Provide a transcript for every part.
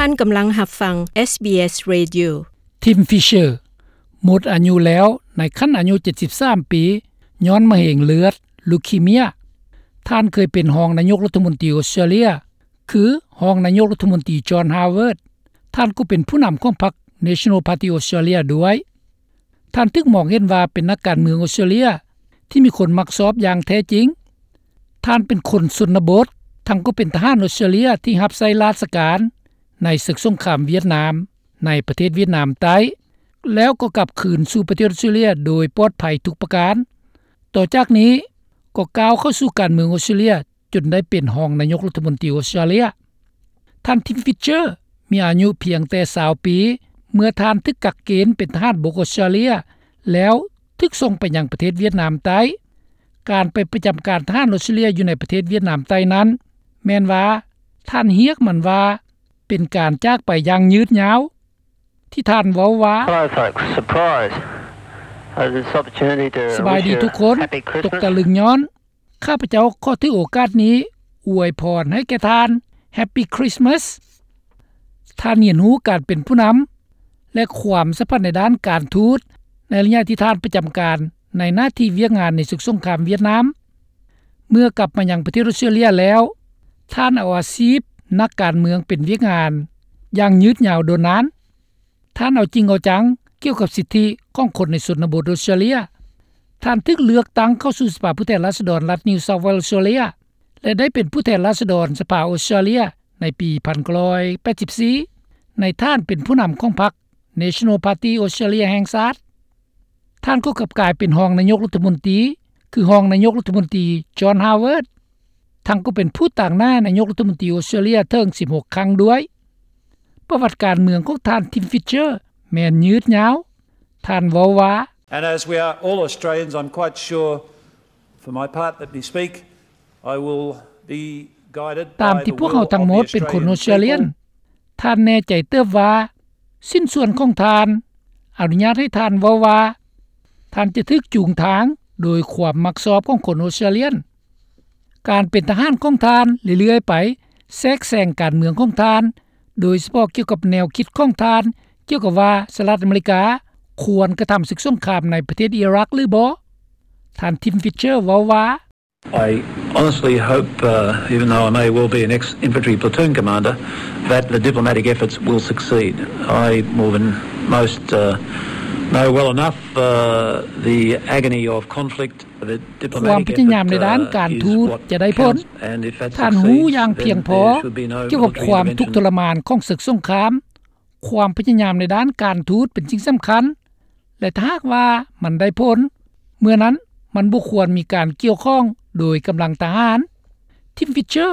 ທ່ານກຳລັງຮັບຟັງ ເອສບີເອສ Radio. ທິມ ຟິດເຊີ ໝົດອາຍຸແລ້ວໃນຂັ້ນອາຍຸເຈັດສິບສາມປີ ຍ້ອນມະເຮັງເລືອດ ລູຄີເມຍ. ທ່ານເຄີຍເປັນຮອງນາຍົກລັດຖະມົນຕີອອສເຕຣເລຍ ຄືຮອງນາຍົກລັດຖະມົນຕີ ຈອນ ຮາວເວີດ. ທ່ານກໍເປັນຜູ້ນຳຂອງພັກ National Party Australia ດ້ວຍ. ທ່ານຖືກມອງເຫັນວ່າເປັນນັກການເມືອງອອສເຕຣເລຍທີ່ມີຄົນມັກຊອບຢ່າງແທ້ຈິງ. ທ່ານເປັນຄົນຊົນນະບົດ, ທັງກໍເປັນທະຫານອອສເຕຣເລຍທີ່ຮັບໃຊ້ລາຊະການໃນເສິກສົງຄາມຫວຽດນາມ ໃນປະເທດຫວຽດນາມໃຕ້, ແລ້ວກໍກັບຄືນສູ່ປະເທດອອສເຕຣເລຍໂດຍປອດໄພທຸກປະການ. ຕໍ່ຈາກນີ້ກໍກ້າວເຂົ້າສູ່ການເມືອງອອສເຕຣເລຍ ຈົນໄດ້ເປັນຮອງນາຍົກລັດຖະມົນຕີອອສເຕຣເລຍ. ທ່ານ ທິມ ຟິດເຊີ ມີອາຍຸພຽງແຕ່ຊາວປີ ເມື່ອທ່ານຖືກກັກເກນເປັນທະຫານບົກອອສເຕຣເລຍ ແລ້ວຖືກສົ່ງໄປຍັງປະເທດຫວຽດນາມໃຕ້. ການໄປປະຈຳການທະຫານອອສເຕຣເລຍຢູ່ໃນປະເທດຫວຽດນາມໃຕ້ນັ້ນ ແມ່ນວ່າທ່ານຮຽກມັນວ່າເປັນການຈາກໄປຢ່າງຍືດຍາວ ທີ່ທ່ານເວົ້າວ່າ Hello, folks. Surprise. Uh, this opportunity to ສະບາຍດີທຸກຄົນ, ຕົກຕະລຶງຍ້ອນ ຂ້າພະເຈົ້າຂໍຖືໂອກາດນີ້ອວຍພອນໃຫ້ແກ່ທ່ານ Happy Christmas. ທ່ານຮຽນຮູ້ການເປັນຜູ້ນຳ ແລະ ຄວາມສຳພັນໃນດ້ານການທູດ ໃນໄລຍະທີ່ທ່ານປະຈຳການໃນໜ້າທີ່ວຽກງານໃນເສິກສົງຄາມຫວຽດນາມ. ເມື່ອກັບມາຍັງປະເທດອອສເຕຣເລຍແລ້ວ, ທ່ານເອົາອາຊີບນັກການເມືອງເປັນວຽກງານຢ່າງຍືດຍາວດົນນານ. ທ່ານເອົາຈິງເອົາຈັງກ່ຽວກັບສິດທິຂອງຄົນໃນຊົນນະບົດອອສເຕຣເລຍ. ທ່ານຖືກເລືອກຕັ້ງເຂົ້າສູ່ສະພາຜູ້ແທນລາຊະດອນລັດ New South Wales ອອສເຕຣເລຍ ແລະ ໄດ້ເປັນຜູ້ແທນລາຊະດອນສະພາອອສເຕຣເລຍໃນປີພັນເກົ້າຮ້ອຍແປດສິບສີ່ ໃນຖານເປັນຜູ້ນຳຂອງພັກ National Party Australia ແຫ່ງຊາດ. ທ່ານກໍກັບກາຍເປັນຮອງນາຍົກລັດຖະມົນຕີ ຄືຮອງນາຍົກລັດຖະມົນຕີ ຈອນ ຮາວເວີດ ທັງກໍເປັນຜູ້ຕາງໜ້ານາຍົກລັດຖະມົນຕີອອສເຕຣເລຍເຖິງສິບຫົກຄັ້ງດ້ວຍ. ປະຫວັດການເມືອງຂອງທ່ານ ທິມ ຟິດເຊີ ແມ່ນຍືດຍາວ. ທ່ານເວົ້າວ່າ And as we are all Australians, I'm quite sure, for my part, let me speak, I will be guided by the will of the Australian people. ຕາມທີ່ພວກເຮົາທັງໝົດເປັນຄົນອອສເຕຣເລຍ, ທ່ານແນ່ໃຈເຕີບວ່າ ຊິ້ນສ່ວນຂອງທ່ານ ອະນຸຍາດໃຫ້ທ່ານເວົ້າວ່າ ທ່ານຈະຖືກຈູງທາງໂດຍຄວາມມັກຊອບຂອງຄົນອອສເຕຣເລຍ. ການເປັນທະຫານຂອງທ່ານເລື້ອຍໆໄປ ແຊກແຊງການເມືອງຂອງທ່ານ, ໂດຍສະເພາະກ່ຽວກັບແນວຄິດຂອງທ່ານ ກ່ຽວກັບວ່າສະຫະລັດອາເມລິກາຄວນກະທຳເສິກສົງຄາມໃນປະເທດອີຣັກຫຼືບໍ່. ທ່ານ ທິມ ຟິດເຊີ ເວົ້າວ່າ I honestly hope, uh, even though I may well be an ex-infantry platoon commander, that the diplomatic efforts will succeed. I, more than most, uh, know well enough, uh, the agony of conflict. ຄວາມພະຍາຍາມໃນດ້ານການທູດຈະໄດ້ຜົນ. ທ່ານຮູ້ຢ່າງພຽງພໍກ່ຽວກັບຄວາມທຸກທໍລະມານຂອງເສິກສົງຄາມ. ຄວາມພະຍາຍາມໃນດ້ານການທູດເປັນສິ່ງສຳຄັນ ແລະ ຖ້າຫາກວ່າມັນໄດ້ຜົນ, ເມື່ອນັ້ນມັນບໍ່ຄວນມີການກ່ຽວຂ້ອງໂດຍກຳລັງທະຫານ. ທິມ ຟິດເຊີ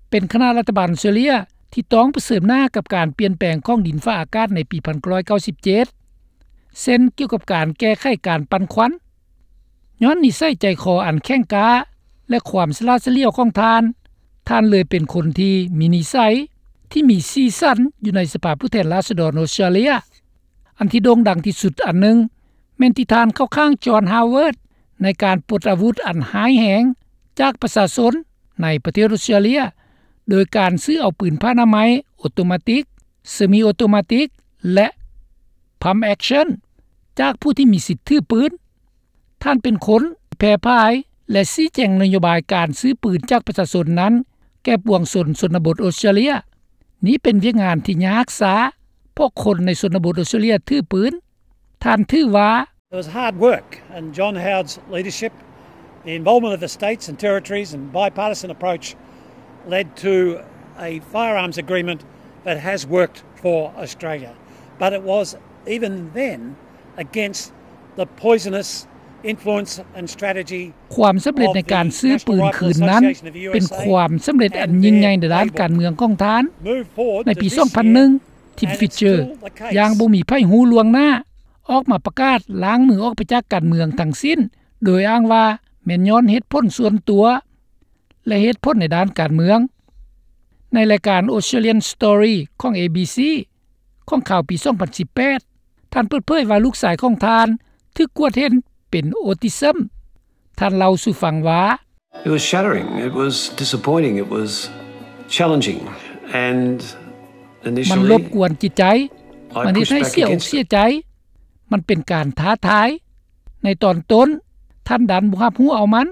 ເປັນຄະນະລັດຖະບານອອສເຕຣເລຍທີ່ຕ້ອງປະເຊີນໜ້າກັບການປ່ຽນແປງຂອງດິນຟ້າອາກາດໃນປີພັນເກົ້າຮ້ອຍເກົ້າສິບເຈັດ ເຊັ່ນ ກ່ຽວກັບການແກ້ໄຂການປັ່ນຄວັນ. ຍ້ອນນິໄສໃຈຄໍອັນແຂງກ້າ ແລະ ຄວາມສະຫຼາດສະຫຼຽວຂອງທ່ານ, ທ່ານເລີຍເປັນຄົນທີ່ມີນິໄສທີ່ມີສີສັນຢູ່ໃນສະພາຜູ້ແທນລາຊະດອນອອສເຕຣເລຍ. ອັນທີ່ໂດ່ງດັງທີ່ສຸດອັນໜຶ່ງ ແມ່ນທີ່ທ່ານເຂົ້າຂ້າງ ຈອນ ຮາວເວີດ ໃນການປົດອາວຸດອັນຮ້າຍແຮງຈາກປະຊາຊົນໃນປະເທດອອສເຕຣເລຍ ໂດຍການຊື້ເອົາປືນຜ້າອະນາໄມໂອໂຕມາຕິກ, ເຊມີໂອໂຕມາຕິກ ແລະ pump action ຈາກຜູ້ທີ່ມີສິດຖືປືນ. ທ່ານເປັນຄົນທີ່ແຜ່ພາຍ ແລະ ຊີ້ແຈງນະໂຍບາຍການຊື້ປືນຈາກປະຊາຊົນນັ້ນແກ່ປວງຊົນຊົນນະບົດອອສເຕຣເລຍ. ນີ້ເປັນວຽກງານທີ່ຍາກຊ້າ ເພາະຄົນໃນຊົນນະບົດອອສເຕຣເລຍຖືປືນ. ທ່ານຖືວ່າ It was hard work, and John Howard's leadership, the involvement of the states and territories and bipartisan approach led to a firearms agreement that has worked for Australia. But it was even then against the poisonous influence and strategy ຄວາມສຳເລັດໃນການຊື້ປືນຄືນນັ້ນ ເປັນຄວາມສຳເລັດອັນຍິ່ງໃຫຍ່ໃນດ້ານການເມືອງຂອງທ່ານ. ໃນປີສອງພັນໜຶ່ງ ທິມ ຟິດເຈີ ຢ່າງບໍ່ມີໃຜຮູ້ລ່ວງໜ້າ ອອກມາປະກາດລ້າງມືອອກໄປຈາກການເມືອງທັງສິ້ນ ໂດຍອ້າງວ່າແມ່ນຍ້ອນເຫດຜົນສ່ວນຕົວ ແລະ ເຫດຜົນໃນດ້ານການເມືອງ. ໃນລາຍການ Australian Story ຂອງ ເອບີຊີ ຂອງຂ່າວປີສອງພັນສິບແປດ ທ່ານເປີດເຜີຍວ່າລູກຊາຍຂອງທ່ານຖືກກວດເຫັນເປັນ autism. ທ່ານເລົ່າສູ່ຟັງວ່າ It was shattering. It was disappointing. It was challenging. And ມັນລົບກວນຈິດໃຈ, ມັນເຮັດໃຫ້ເສຍອົກເສຍໃຈ, ມັນເປັນການທ້າທາຍ. ໃນຕອນຕົ້ນ, ທ່ານດັນບໍ່ຮັບຮູ້ເອົາມັນ.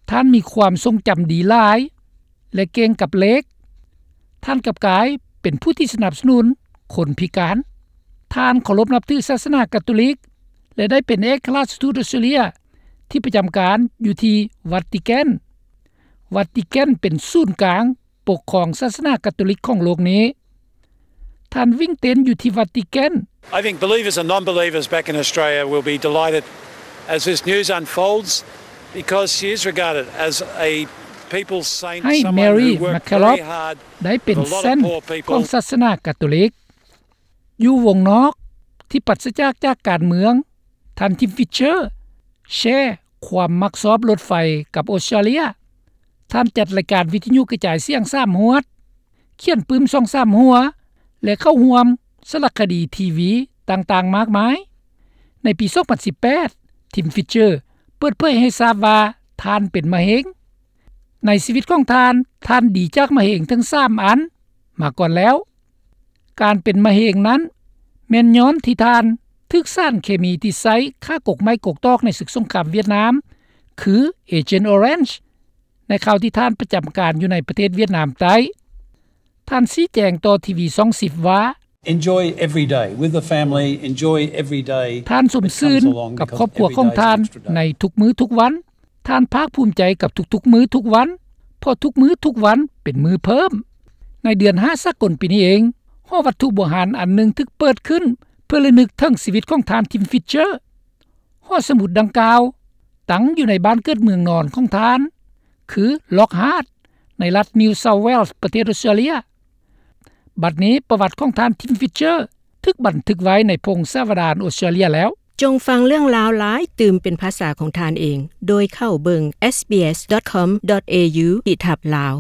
ທ່ານມີຄວາມຊົງຈຳດີຫຼາຍ ແລະ ເກັ່ງກັບເລກ. ທ່ານກັບກາຍເປັນຜູ້ທີ່ສະໜັບສະໜູນຄົນພິການ. ທ່ານເຄົາລົບນັບຖືສາສະໜາກາໂຕລິກ ແລະ ໄດ້ເປັນເອກະລາຊທູດອອສເຕຣເລຍທີ່ປະຈຳການຢູ່ທີ່ວັດຕິແກນ. ວັດຕິແກນເປັນສູນກາງ ປົກຄອງສາສະໜາກາໂຕລິກຂອງໂລກນີ້. ທ່ານວິ້ງເຕັ້ນຢູ່ທີ່ວັດຕິແກນ. I think believers and non-believers back in Australia will be delighted as this news unfolds, because she is regarded as a people's saint, ໃຫ້ someone Mary who worked McKillop very hard ໄດ້ເປັນ with a lot of ເຊນ poor people. ຂອງສາສະໜາກາໂຕລິກ. ຢູ່ວົງນອກທີ່ປາສະຈາກຈາກການເມືອງ, ທ່ານ Tim Fischer ແຊຄວາມມັກຊອບລົດໄຟກັບອົດສະຕາເລຍ. ທ່ານຈັດລາຍການວິທະຍຸກະຈາຍສຽງສາມຮວດ, ຂຽນປຶ້ມສອງສາມຫົວ ແລະ ເຂົ້າຮ່ວມສາລະຄະດີທີວີຕ່າງໆມາກມາຍ. ໃນປີສອງພັນສິບແປດ, Tim Fischer ເປີດເຜີຍໃຫ້ຊາບວ່າທ່ານເປັນມະເຮັງ. ໃນຊີວິດຂອງທ່ານ, ທ່ານດີຈາກມະເຮັງເຖິງສາມອັນມາກ່ອນແລ້ວ. ການເປັນມະເຮັງນັ້ນ ແມ່ນຍ້ອນທີ່ທ່ານຖືກສານເຄມີທີ່ໃຊ້ຂ້າກົກໄມ້ກົກຕອກໃນເສິກສົງຄາມຫວຽດນາມ ຄື Agent Orange ໃນຄາວທີ່ທ່ານປະຈຳການຢູ່ໃນປະເທດຫວຽດນາມໃຕ້. ທ່ານຊີ້ແຈງຕໍ່ທີວີຊ່ອງສິບວ່າ, Enjoy every day with the family, enjoy every day. ທ່ານຊົມຊື່ນກັບຄອບຄົວຂອງທ່ານໃນທຸກມື້ທຸກວັນ. ທ່ານພາກພູມໃຈກັບທຸກໆມື້ທຸກວັນ, ເພາະທຸກມື້ທຸກວັນເປັນມື້ເພີ່ມ. ໃນເດືອນຫ້າສາກົນປີນີ້ເອງ, ຫໍວັດຖຸບູຮານອັນໜຶ່ງຖືກເປີດຂຶ້ນເພື່ອລະນຶກເຖິງຊີວິດຂອງທ່ານ Tim Fischer. ຫໍສະໝຸດດັ່ງກ່າວຕັ້ງຢູ່ໃນບ້ານເກີດເມືອງນອນຂອງທ່ານ ຄື Lockhart ໃນລັດ New South Wales ປະເທດອົດສະຕາເລຍ. ບັດນີ້ປະຫວັດຂອງທ່ານ Tim Fischer ຖືກບັນທຶກໄວ້ໃນພົງສາວະດານອົດສະຕາເລຍແລ້ວ. ຈົ່ງຟັງເລື່ອງລາວຫຼາຍຕື່ມເປັນພາສາຂອງທ່ານເອງ ໂດຍເຂົ້າເບິ່ງ sbs.com.au/lao